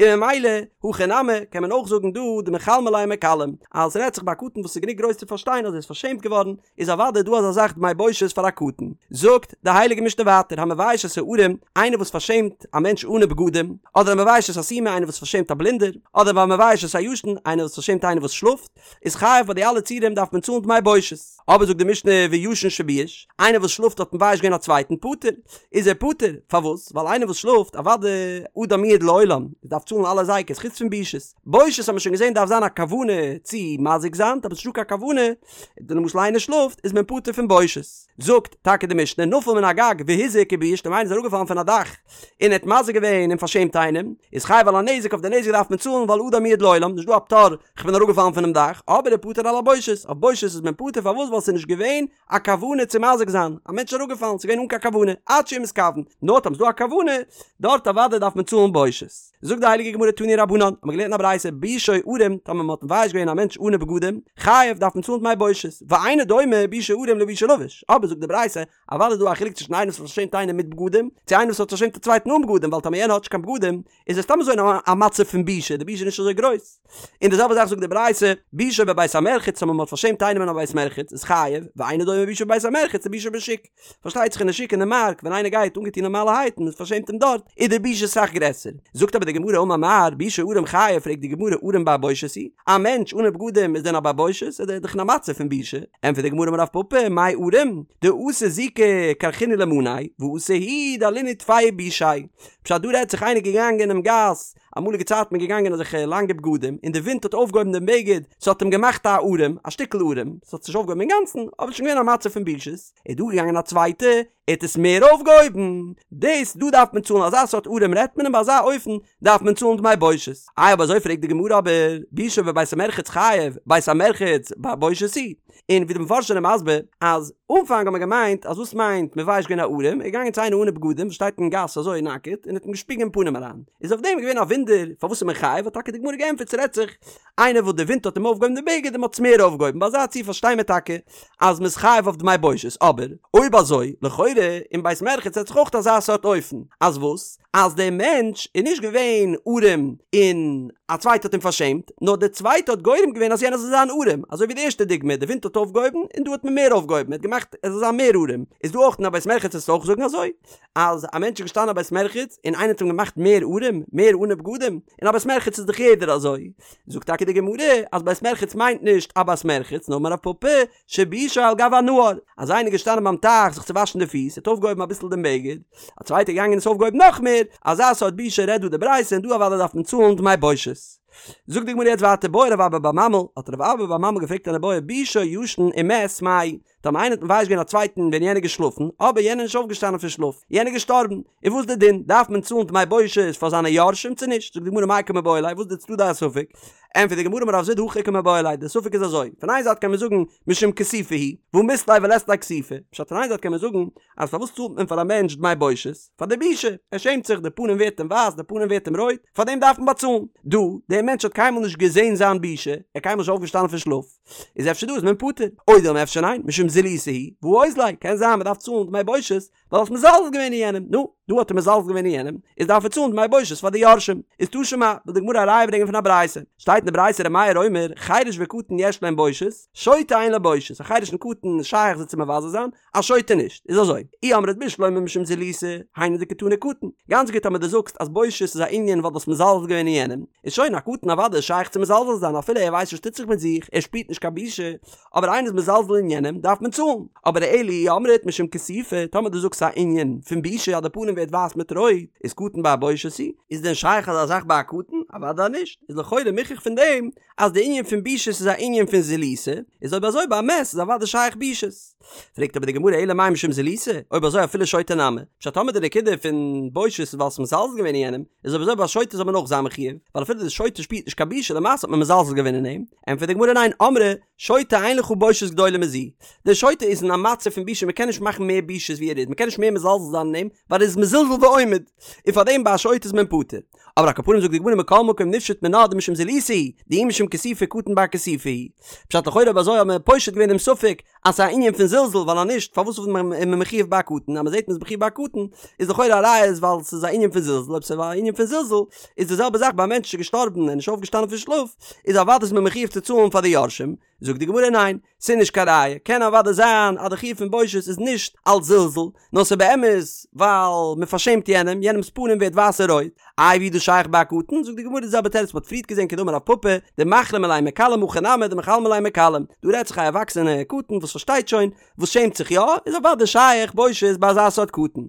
און ממילא הכא נמי קען מען אויך זאגן דא דמיכלמו ליה ומכלם אז ס'רעדט זיך ביי א קטן וואס איז גענוג גרויס צו פארשטיין אז ער איז פארשעמט געווארן, איז אוודאי דא אזא זאך דמי בושת פאר א קטן. זאגט די הייליגע משנה ווייטער המבייש את הערום, איינער וואס פארשעמט א מענטש אנע בגדים, אדער המבייש את הסומא איינער וואס פארשעמט א בלינדער, אדער והמבייש את הישן איינער וואס פארשעמט איינער וואס שלאפט, איז חייב ביי די אלע ציורים דארף מען צאלן דמי בושת. אבער זאגט די משנה וישן שבייש, איינער וואס שלאפט האט מבייש געווען א צווייטן פטור, איז ער פטור, פארוואס? ווייל איינער וואס שלאפט, אוודאי אדם מועד לעולם, דארף צאלן אלע הזיקות חוץ פון בושות. בושת האט מען שוין געזען דארף זיין א כוונה צו מזיק זיין, אבער ס'נישטא קיין כוונה, די למשל איינער שלאפט איז מען פטור פון בושת. זאגט טאקע די משנה נפל מן הגג והזיק ובייש טאמער איינער איז אראפגעפאלן פון א דאך און ער האט מזיק געווען און פארשעמט איינעם איז חייב על הנזק אויף די נזק דארף מען צאלן ווייל אדם מועד לעולם נישט דא א פטור כ'בין אראפגעפאלן פונעם דאך אבער ופטור על הבושת אויף בושת איז מען פטור פארוואס ווייל ווייל ס'איז נישט געווען א כוונה צו מזיק זיין, א מענטש איז אראפגעפאלן, ס'איז געווען אן קיין כוונה, עד שיהיה מתכוון, נאר טאמער ס'איז דא א כוונה, דארט אוודאי דארף מען צאלן בושת. זאגט די הייליגע גמרא תנו רבנן, האט מען געלערנט אין א ברייתא, ביישו ערום, טאמער מ'האט מבייש געווען א מענטש אנע בגדים, חייב, דארף מען צאלן דמי בושת, ואינו דומה ביישו ערום לביישו לבוש, אבער זאגט די ברייתא, אוודאי איז דא א חילוק צווישן איינער וואס האט פארשעמט איינעם מיט בגדים, צו איינער וואס האט פארשעמט א צווייטן אן בגדים, ווייל טאמער יענער האט נישט קיין בגדים, איז ער סתם אזוי אין א מצב פון בושה, די בושה איז נישט אזוי גרויס. און די זעלבע זאך זאגט די ברייתא, ביישו בבית המרחץ, טאמער מען האט פארשעמט איינעם אין א בית מרחץ, איז חייב, ואינו דומה ביישו בבית המרחץ לביישו בשוק. פארשטייט זיך אין די שוק אין די מארק, ווען איינער גייט אנגעטון נארמאלערהייט און מען פארשעמט אים דארט, איז די בושה אסאך גרעסער. זאגט אבער די גמרא אמר מר, ביישו ערום חייב, פרעגט די גמרא ערום בר בושת הוא? א מענטש אנע בגדים איז דען א בר בושת? איז ער דאך אין א מצב פון בושה. ענטפערט די גמרא אמר רב פפא, מאי ערום? דאתא זיקא כרכינהו למאניה, ואתא הוא דלינהו טפי וביישיה. פשט דא רעדט זיך איינער געגאנגען אינעם גאס, אמאליגע צייטן מען געגאנגען אזעלכע לאנגע בגדים, און די ווינט האט אויפגעהויבן דעם בגד, ס'האט אים געמאכט א ערום, א שטיקל ערום, ס'האט זיך נישט אויפגעהויבן אינגאנצן, אבער ס'איז שוין געווען א מצב פון בושות, איז דא געגאנגען א צווייטע, ער האט עס מער אויפגעהויבן, דאס דא דארף מען צאלן, אזא סארט ערום רעדט מען און ביי אזא אופן דארף מען צאלן דמי בושת. איי אויב אזוי פרעגט די גמרא אבער, ביישו בבית המרחץ חייב, בית המרחץ בר בושת הוא? און ווי די מפרשים זענען מסביר אז אנפאנג האט מען געמיינט אז וואס מיינט מבייש געווען א ערום, ער איז געגאנגען צו איינער אנע בגדים וואס שטייט אין גאס אזוי נאקעט און האט אים געשפיגן אין פנים אריין, איז אויף דעם געווען א וואונדער פארוואס איז מען חייב, האט טאקע די גמרא געענטפערט ס'רעדט זיך איינער וואס די ווינט האט אים אויפגעהויבן די בגד און מ'האט עס מער אויפגעהויבן, ביי אזא ציור פארשטיי מיר טאקע אז מ'איז חייב אויף דמי בושת, אבער אויב אזוי לכאורה אין בית מרחץ רעדט זיך אויך אזא סארט אופן, אז וואס? אז דער מענטש איז נישט געווען ערום און א צווייטער האט אים פארשעמט, נאר דער צווייטער האט גורם געווען אז יענער זאל זיין ערום, אזוי ווי די ערשטע דוגמא, די ווינט האט אויפגעהויבן און דא האט מען מער אויפגעהויבן, ער האט געמאכט ער זאל זיין מער ערום, איז דא אויך אין א בית מרחץ וועסטו אויך זאגן אזוי? אז א מענטש איז געשטאנען אין א בית מרחץ און איינער האט אים געמאכט מער ערום, מער אנע בגדים, אין א בית מרחץ איז דאך יעדער אזוי, זאגט טאקע די גמרא אז בית מרחץ מיינט נישט א בית מרחץ נאר אמר רב פפא שביישו על גב הנהר, אז איינער איז געשטאנען ביים טייך זיך צו וואשן די פיס, ער האט אויפגעהויבן אביסל דעם בגד, א צווייטער געגאנגען און עס אויפגעהויבן נאך מער, אזא סארט בושה רעדט דא די ברייתא און דא אוודאי דארף מען צאלן דמי בושת. זאגט די גמרא יעצט ווייטער בעי רב אבא בר ממל, האט רב אבא בר ממל געפרעגט אן איבעיא ביישו ישן ומת מאי, טאמער איינער האט מבייש געווען א צווייטן ווען יענער איז געשלאפן, אבער יענער איז נישט אויפגעשטאנען פון שלאף, יענער איז געשטארבן, איז וואס די דין? דארף מען צאלן דמי בושת פאר זיינע יורשים צו נישט? זאגט די גמרא מאי קא מיבעיא ליה, וואס איז די צדדי הספק? ענטפערט די גמרא אמר רב זביד הכי קא מיבעיא ליה, די ספק איז אזוי, פון איין זייט קען מען זאגן משום כיסופא הוא, והא מית ליה ולית ליה כיסופא, פשט פון איין זייט קען מען זאגן אז פארוואס צאלט מען פאר א מענטש דמי בושת? פאר די בושה, ער שעמט זיך, די פנים ווערט אים ווייס, די פנים ווערט אים רויט, פאר דעם דארף מען באצאלן. דא, דער מענטש האט קיינמאל נישט געזען זיין בושה, ער איז קיינמאל נישט אויפגעשטאנען פון שלאף, איז אפשר דא איז מען פטור, או דילמא אפשר ניין, משום זילותא הוא, והא אוזליה, קען זיין מען דארף צאלן דמי בושת, ווייל האסט מזלזל געווען אין יענעם, נו, דא האט ער מזלזל געווען אין יענעם, איז דארף ער צאלן דמי בושת פאר די יורשים. איז תא שמע, וויל די גמרא א ראיה ברענגען פון א ברייתא. שטייט אין די ברייתא ר' מאיר אומר, חרש וקטן יש להם בושת, שוטה אין לו בושת, א חרש און קטן איז שייך זיי צו מבזה זיין, א שוטה נישט. איז אזוי, אי אמרת בשלמא משום זילותא, היינו דקתני קטן. גאנץ גוט אז דו זאגסט אז בושת איז א ענין ווייל דו האסט מזלזל געווען אין יענעם, איז שוין א קטן אוודאי איז שייך צו מזלזל זיין אפילו ער ווייסט נישט וואס טוט זיך מיט זיך, ער שפירט נישט קיין בושה, אבער איינער איז מזלזל אין יענעם דארף מען צאלן, אבער אלא אי אמרת משום כיסופא, טאמער דו זאגסט א ענין פון בושה אז די פנים ווערט ווייס מיט רויט, איז קטן בר בושת הוא? איז דען שייך אזא זאך ביי א קטן? אוודאי נישט, איז לכאורה מוכח פון דעם אז די ענין פון בושות איז א ענין פון זילותא, איז אויב אזוי ביי א מת איז אוודאי שייך בושות. פרעגט אבער די גמרא אלא מאי משום זילותא, אויב אזוי אפילו שוטה נמי, פשט טאמער די נקודה פון בושות איז ווייל ס'איז מזלזל געווען אין יענעם, איז אויב אזוי ביי א שוטה זאל מען אויך זיין מחויב, ווייל אפילו די שוטה שפירט נישט קיין בושה למעשה האט מען מזלזל געווען אין אים, ענטפערט די גמרא ניין אמרי שוטה אין לך בושת גדולה מזו, דער שוטה איז אין א מצב פון בושה מען קען נישט מאכן מער בושות ווי ער איז מען קען נישט מער מזלזל זיין אין אים ווייל ער איז מזולזל ועומד און פאר דעם ביי א שוטה איז מען פטור. אבער על כל פנים זאגט די גמרא מכל מקום נפשוט מינה דמשום זילותא הוא, דאי משום כיסופא קטן בר כיסופא הוא. פשט לכאורה אויב אזוי האט מען פושט געווען דעם ספק אז ס'איז א ענין פון זלזול ווייל אז נישט פארוואס איז מען מחויב ביי א קטן אז מ'זעט מ'איז מחויב ביי א קטן איז לכאורה א ראיה איז ווייל ס'איז א ענין פון זלזול אויב ס'איז א ענין פון זלזול איז די זעלבע זאך ביי א מענטש איז געשטארבן און נישט אויפגעשטאנען פון שלאף איז אוודאי איז מען מחויב צו צאלן פאר די יורשים זאגט די גמרא ניין ס'איז נישט קיין ראיה קען אוודאי זיין אז די חיוב פון בושת איז נישט אלץ זלזול נאר ס'איז באמת ווייל מ'פארשעמט יענעם יענעמ'ס פנים ווערט ווייס און רויט איי ווי איז דאס שייך ביי א קטן? זאגט די גמרא די זעלבע תירוץ מ'האט פריערט געזען כדאמר רב פפא, דמחלים עליה מכלם הכא נמי דמחלמי עליה מכלם, דא רעדט זיך א ערוואקסענע קטן וואס פארשטייט שוין, וואס שעמט זיך יא, איז אוודאי שייך בושת ביי אזא סארט קטן.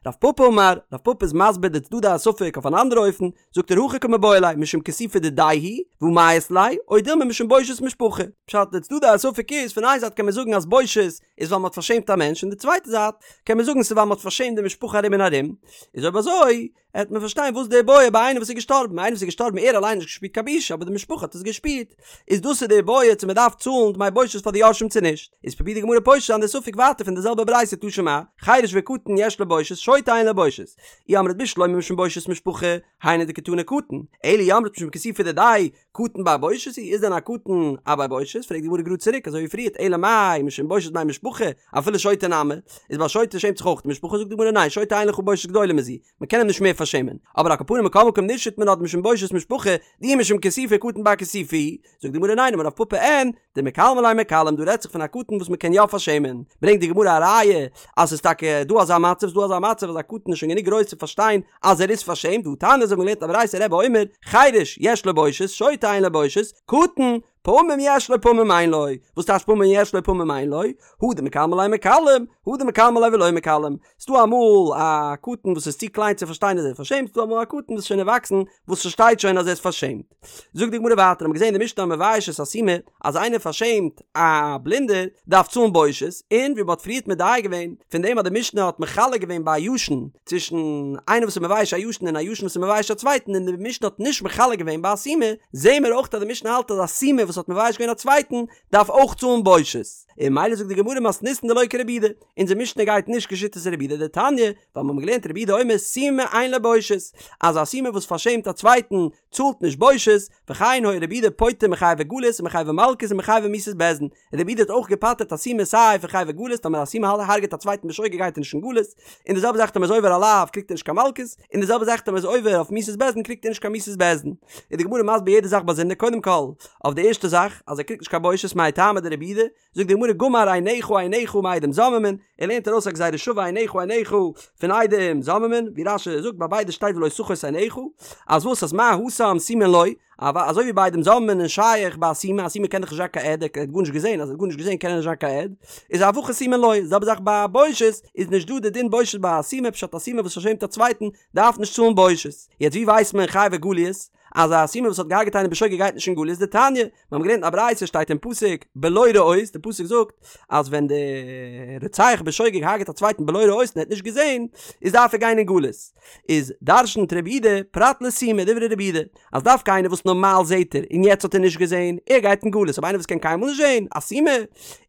רב פפא אמר, רב פפא איז מסביר די צדדי הספק אויף אן אנדערע אופן, זאגט ער הכי קמיבעיא ליה משום כיסופא דידיה הוא, והא מיית ליה, או דילמא משום בושת משפחה. פשט, די צדדי הספק איז, פון איין זייט קען מען זאגן אז בושת איז ווייל מ'האט פארשעמט א מענטש, און די צווייטע זייט קען מען זאגן ס'איז ווייל מ'האט פארשעמט די משפחה ארום און ארום, איז אויב אזוי. העט מען פארשטיין וואס די בעיא ביי איינער וואס איז געשטארבן, איינער וואס איז געשטארבן ער אליין האט נישט געשפירט קיין בושה אבער די משפחה האט עס געשפירט, איז דאס איז די בעיא צו מען דארף צאלן דמי בושת פאר די יורשים צו נישט, איז פרובירט די גמרא פושט זיין די ספק ווייטער פון די זעלבע ברייתא תא שמע, חרש וקטן יש לו בושת, שוטה אין לו בושת, אי אמרת בשלמא משום בושת משפחה, היינו דקתני קטן, אלא אי אמרת משום כיסופא דידיה, קטן בר בושת הוא, איז דען א קטן א בר בושת? פרעגט די גמרא גראד צוריק אזוי ווי פריערט, אלא מאי משום בושת בני משפחה, אפילו שוטה נמי, איז ביי שוטה שעמט זיך אויך די משפחה, זאגט די גמרא ניין שוטה אין לך בושת גדולה מזו, מען קען אים נישט מער פארשעמען, אבער על כל פנים מכל מקום נישט מינה דמשום בושת משפחה, דאי משום כיסופא קטן בר כיסופא הוא, זאגט די גמרא ניין אמר רב פפא אין, דמקלמי ליה מיקלם דא רעדט זיך פון א קטן וואס מען קען יא פארשעמען, ברענגט די גמרא א ראיה אז ס'איז טאקע דא אזא מצב, ס'איז דא אזא מצב אז א קטן איז שוין גענוג גרויס צו פארשטיין אז ער איז פארשעמט, והא תניא אזוי ווי מ'האט געלערנט א ברייתא רבי אומר, חרש יש לו בושת, שוטה אין לו בושת, קטן, פעמים יש לו פעמים אין לו, וואס טייטש פעמים יש לו פעמים אין לו? הא דמקלמי ליה מיקלם, הא דמקלמי ליה ולא מיקלם, ס'דא אמאל א קטן וואס איז צו קליין צו פארשטיין אז ער איז פארשעמט, ס'דא אמאל א קטן וואס איז שוין ערוואקסן וואס פארשטייט שוין אז ער איז פארשעמט. זאגט די גמרא ווייטער, האבן מיר געזען אין די משנה המבייש את הסומא, אז איינער פארשעמט א בלינדער דארף צאלן בושת, און ווי מ'האט פריערט מדייק געווען פון דעם אז די משנה האט מחלק געווען ביי א ישן צווישן איינער וואס איז מבייש א ישן און א ישן וואס איז מבייש א צווייטן און די משנה האט נישט מחלק געווען ביי א סומא, זעהן מיר אויך אז די משנה האלט אז א סומא וואס האט מבייש געווען א צווייטן דארף אויך צאלן בושת, און ממילא זאגט די גמרא מתניתין דלא כרבי יהודה, אונזער משנה גייט נישט כשיטת רבי יהודה דתניא, ווייל מיר האבן געלערנט רבי יהודה אומר סומא אין לו בושת, אז א סומא וואס פארשעמט א צווייטן צאלט נישט בושת, וכן היה רבי יהודה פוטר מחייבי גלות ומחייבי מלקות ומחייבי מיתות בית דין, רבי יהודה האט אויך געפטר'ט א סומא סיי פון חייבי גלות טאמער א סומא הרג'עט א צווייטן בשוגג גייט ער נישט אין גלות, און די זעלבע זאך טאמער איז עובר א לאו קריגט ער נישט קיין מלקות, און די זעלבע זאך טאמער איז עובר אויף מיתות בית דין קריגט ער נישט קיין מיתות בית דין. איז די גמרא מסביר יעדע זאך באזונדער קודם כל אויף די ערשטע זאך אז ער קריגט נישט קיין בושת מאי טעמא דרבי יהודה, זאגט די גמרא גמר עיניך עיניך מעדים זוממין, ער לערנט ארויס א גזירה שווה עיניך עיניך פון עדים זוממין, ווי רש"י זאגט ביי ביידע שטייט ולא תחוס עיניך, אז וואס אז מה התם סומין לא, אזוי ווי ביי עדים זוממין איז שייך ביי א סומא, א סומא קען דאך נישט זיין קיין עד, ער האט גארנישט געזען, אז ער האט גארנישט געזען קען ער נישט זיין קיין עד, איז אף הכא סומין לא, די זעלבע זאך ביי בושת, איז נישט דא די דין בושת ביי א סומא, פשט א סומא וואס פארשעמט א צווייטן דארף נישט צאלן בושת. יעצט ווי ווייסט מען חייבי גליות? אז א סומא וואס האט געהארגעט איינעם בשוגג גייט נישט אין גלות דתניא, מיר האבן געלערנט אין א ברייתא שטייט אין פסוק בלא ראות, די פסוק זאגט אז ווען די רוצח בשוגג הרגעט א צווייטן בלא ראות און ער האט נישט געזען איז דארף ער גיין אין גלות, איז דרשנ'ט רבי יהודה פרט לסומא דברי רבי יהודה אז דווקא איינער וואס נארמאל זעט ער און יעצט האט ער נישט געזען ער גייט אין גלות אבער איינער וואס קען קיינמאל נישט זען א סומא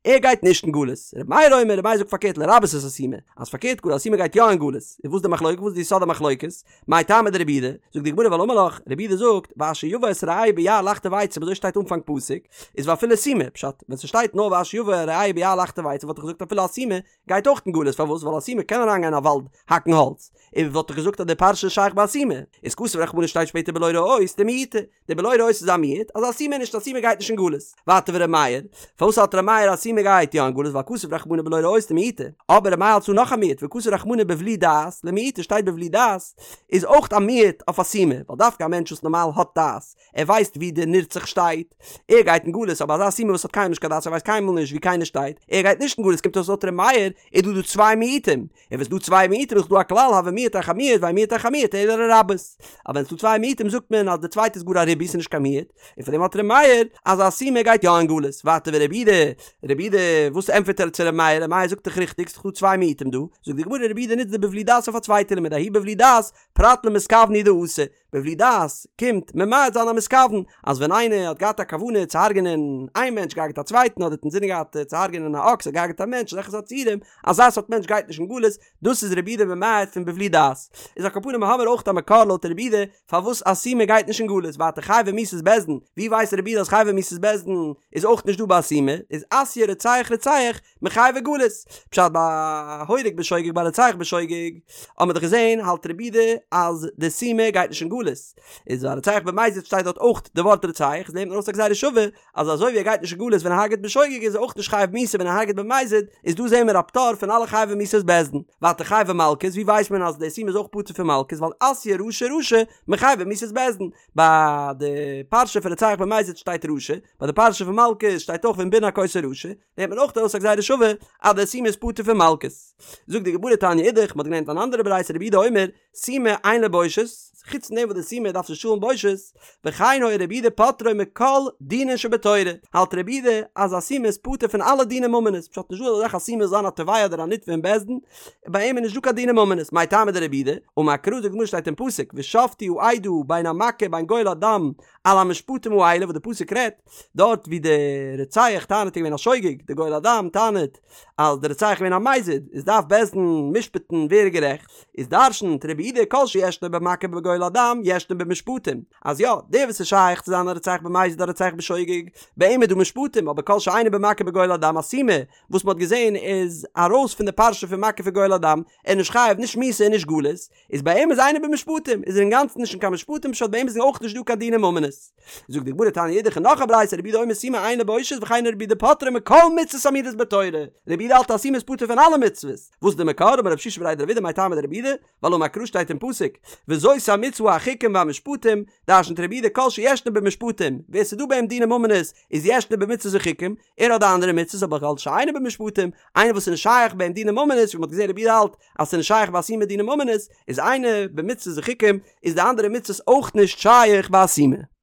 ער גייט נישט אין גלות, רבי מאיר אומר רבי מאיר זאגט פארקערט לרבות את הסומא אז פארקערט גאר א סומא גייט יא אין גלות, איז וואס די מחלוקת וואס איז די יסוד המחלוקת? מאי טעמא דרבי יהודה, זאגט די גמרא ווייל אמר לך, רבי יהודה זאגט, ואשר יבא את רעהו ביער לחטוב עצים אזוי שטייט אנפאנג פסוק, איז ואפילו סומא, פשט, ווען ס'שטייט נאר ואשר יבא רעהו ביער לחטוב עצים וואלט איך געזאגט אפילו א סומא גייט אויך אין גלות, פארוואס? ווייל א סומא קען אריינגיין אין א וואלד האקן האלץ, און וואלט איך געזאגט אז די פרשה איז שייך ביי א סומא, איז כתב רחמנא שטייט שפעטער בלא ראות דמיעוטא, די בלא ראות איז א מיעוט, אז א סומא נישט א סומא גייט נישט אין גלות. ווייטער ור' מאיר, פארוואס האלט ר' מאיר אז סומא גייט יא אין גלות ווייל כתב רחמנא בלא ראות דמיעוטא, אבער ר' מאיר האלט צו נאך א מיעוט וכתב רחמנא בבלי דעת למיעוטא שטייט בבלי דעת איז אויך א מיעוט אויף א סומא, ווייל דווקא א מענטש וואס נארמאל האט דעת, ער ווייסט ווי די נרצח שטייט, ער גייט אין גלות, אבער אזא סומא וואס האט קיינמאל נישט קיין דעת ער ווייסט קיינמאל נישט ווי קיינער שטייט, ער גייט נישט אין גלות קומט אויס לויט ר' מאיר איז דא דא צוויי מיעוטים, און ווען ס'דא צוויי מיעוטים איז דא א כלל הוי מיעוט אחר מיעוט ואין מיעוט אחר מיעוט אלא לרבות. אז ווען ס'דא צוויי מיעוטים זאגט מען אז די צווייטע איז גאר א ריבוי ס'נישט קיין מיעוט, און פאר דעם האלט ר' מאיר אז א סומא גייט יא אין גלות. ווייטער ורבי יהודה, רבי יהודה וואס ענטפערט ער צו ר' מאיר? ר' מאיר זאגט דאך ריכטיג ס'דאך דא צוויי מיעוטים דא, זאגט די גמרא רבי יהודה נוצט די בבלי דעת אויף א צווייטע לימוד ההוא בבלי דעת פרט למתכוון הוא דאתא, בבלי דעת קומט ממעט זיין א מתכוון, אז ווען איינער האט געהאט א כוונה צו הרג'נען איין מענטש געהארגעט א צווייטן אדער האט אינזינען געהאט צו הרג'נען א אקס האט געהארגעט א מענטש אזעלכע סארט ציורים, אזא סארט מענטש גייט נישט אין גלות, דאס איז רבי יהודה ממעט פון בבלי דעת. איז על כל פנים האמיר אויך א מקור לויט רבי יהודה פארוואס א סומא גייט נישט אין גלות, ווייטער חייבי מיתות בית דין, ווי ווייסט רבי יהודה אז חייבי מיתות בית דין איז אויך נישט דא ביי א סומא, איז אתיא רוצח רוצח מחייבי גלות. פשט ביי הורג בשוגג ביי רוצח בשוגג האט מען דאך געזען האלט רבי יהודה אז די סומא גייט נישט אין גלות. איז ביי רוצח במזיד שטייט דארט אויך די ווארט רוצח איז לערנט מען ארויס א גזירה שווה אז אזוי ווי ער גייט נישט אין גלות ווען ער הרג'ט בשוגג איז ער אויך נישט חייב מיתה ווען ער הרג'ט במזיד איז דא זעהן מיר א פטור פון אלע חייבי מיתות בית דין. ווייטער חייבי מלקות ווי ווייסט מען אז די סומא איז אויך פטור פון מלקות ווייל אתיא רשע רשע מחייבי מיתות בית דין. ביי די פרשה פון רוצח במזיד שטייט רשע ביי די פרשה פון מלקות שטייט אויך ואם בן הכות הרשע. נעמט מען אויך ארויס א גזירה שווה אז דער סומא איז פטור פון מלקות. זאגט די גמרא תניא אידך, מ'האט געלערנט אן אנדערע ברייתא רבי יהודה אומר, סומא אין לו בושת, חוץ פון דעם וואס וואס די סומא דארף נישט צאלן בושת, וכן היה רבי יהודה פוטרו מכל דינין שבתורה, האלט רבי יהודה אז א סומא איז פטור פון אלע דיני ממונות, פשט נישט דא אזא זאך א סומא זאל זיין א תובע אדער א נתבע אין בית דין, ביי אים איז נישט דא קיין דיני ממונות, מאי טעמא דרבי יהודה, אמר קרא זאגט די גמרא שטייט אין פסוק ושפטו העדה בין המכה בין גואל הדם על המשפטים האלה וואס די פסוק רעדט דארט ווי די רוצח טענה'ט איז געווען א שוגג, די גואל הדם טענה'ט אז די רוצח איז געווען א מזיד, איז דארף בית דין משפט'ן ווער איז גערעכט, איז דרש'נט רבי יהודה כל שישנו במכה ובגואל הדם ישנו במשפטים, אז יא, דער וואס איז שייך צו זיין א רוצח במזיד אדער רוצח בשוגג, ביי אים איז דא משפטים, אבער כל שאינו במכה ובגואל הדם א סומא וואס מ'האט געזען איז ארויס פון די פרשה פון מכה וגואל הדם, ער איז נישט חייב נישט מיתה און נישט גלות, איז ביי אים איז אינו במשפטים, איז ער אינגאנצן נישט אין קיין משפטים פשט ביי אים איז אויך נישט דא קיין דיני ממונות. זאגט די גמרא תניא אידך נאך א ברייתא רבי יהודה אומר סומא אין לו בושת וכן רבי יהודה פוטרו מכל מצוות האמורות בתורה, רבי יהודה האלט אז סומא איז פטור פון אלע מצוות, וואס איז די מקור? אמר רב שישא בריה דרב אידי מאי טעמא דרבי יהודה, ווייל אמר קרא שטייט אין פסוק וזאת המצוה החוקים והמשפטים, דרשנ'ט רבי יהודה כל שישנו במשפטים, ווער ס'איז דא ביי אים דיני ממונות איז ישנו במצוות וחוקים, ער האט די אנדערע מצוות אבער כל שאינו במשפטים, איינער וואס איז נישט שייך ביי אים דיני ממונות, ווי מ'האט געזען רבי יהודה האלט אז ס'איז נישט שייך ביי א סומא דיני ממונות, איז אינו במצוות וחוקים, איז די אנדערע מצוות אויך נישט שייך ביי א סומא.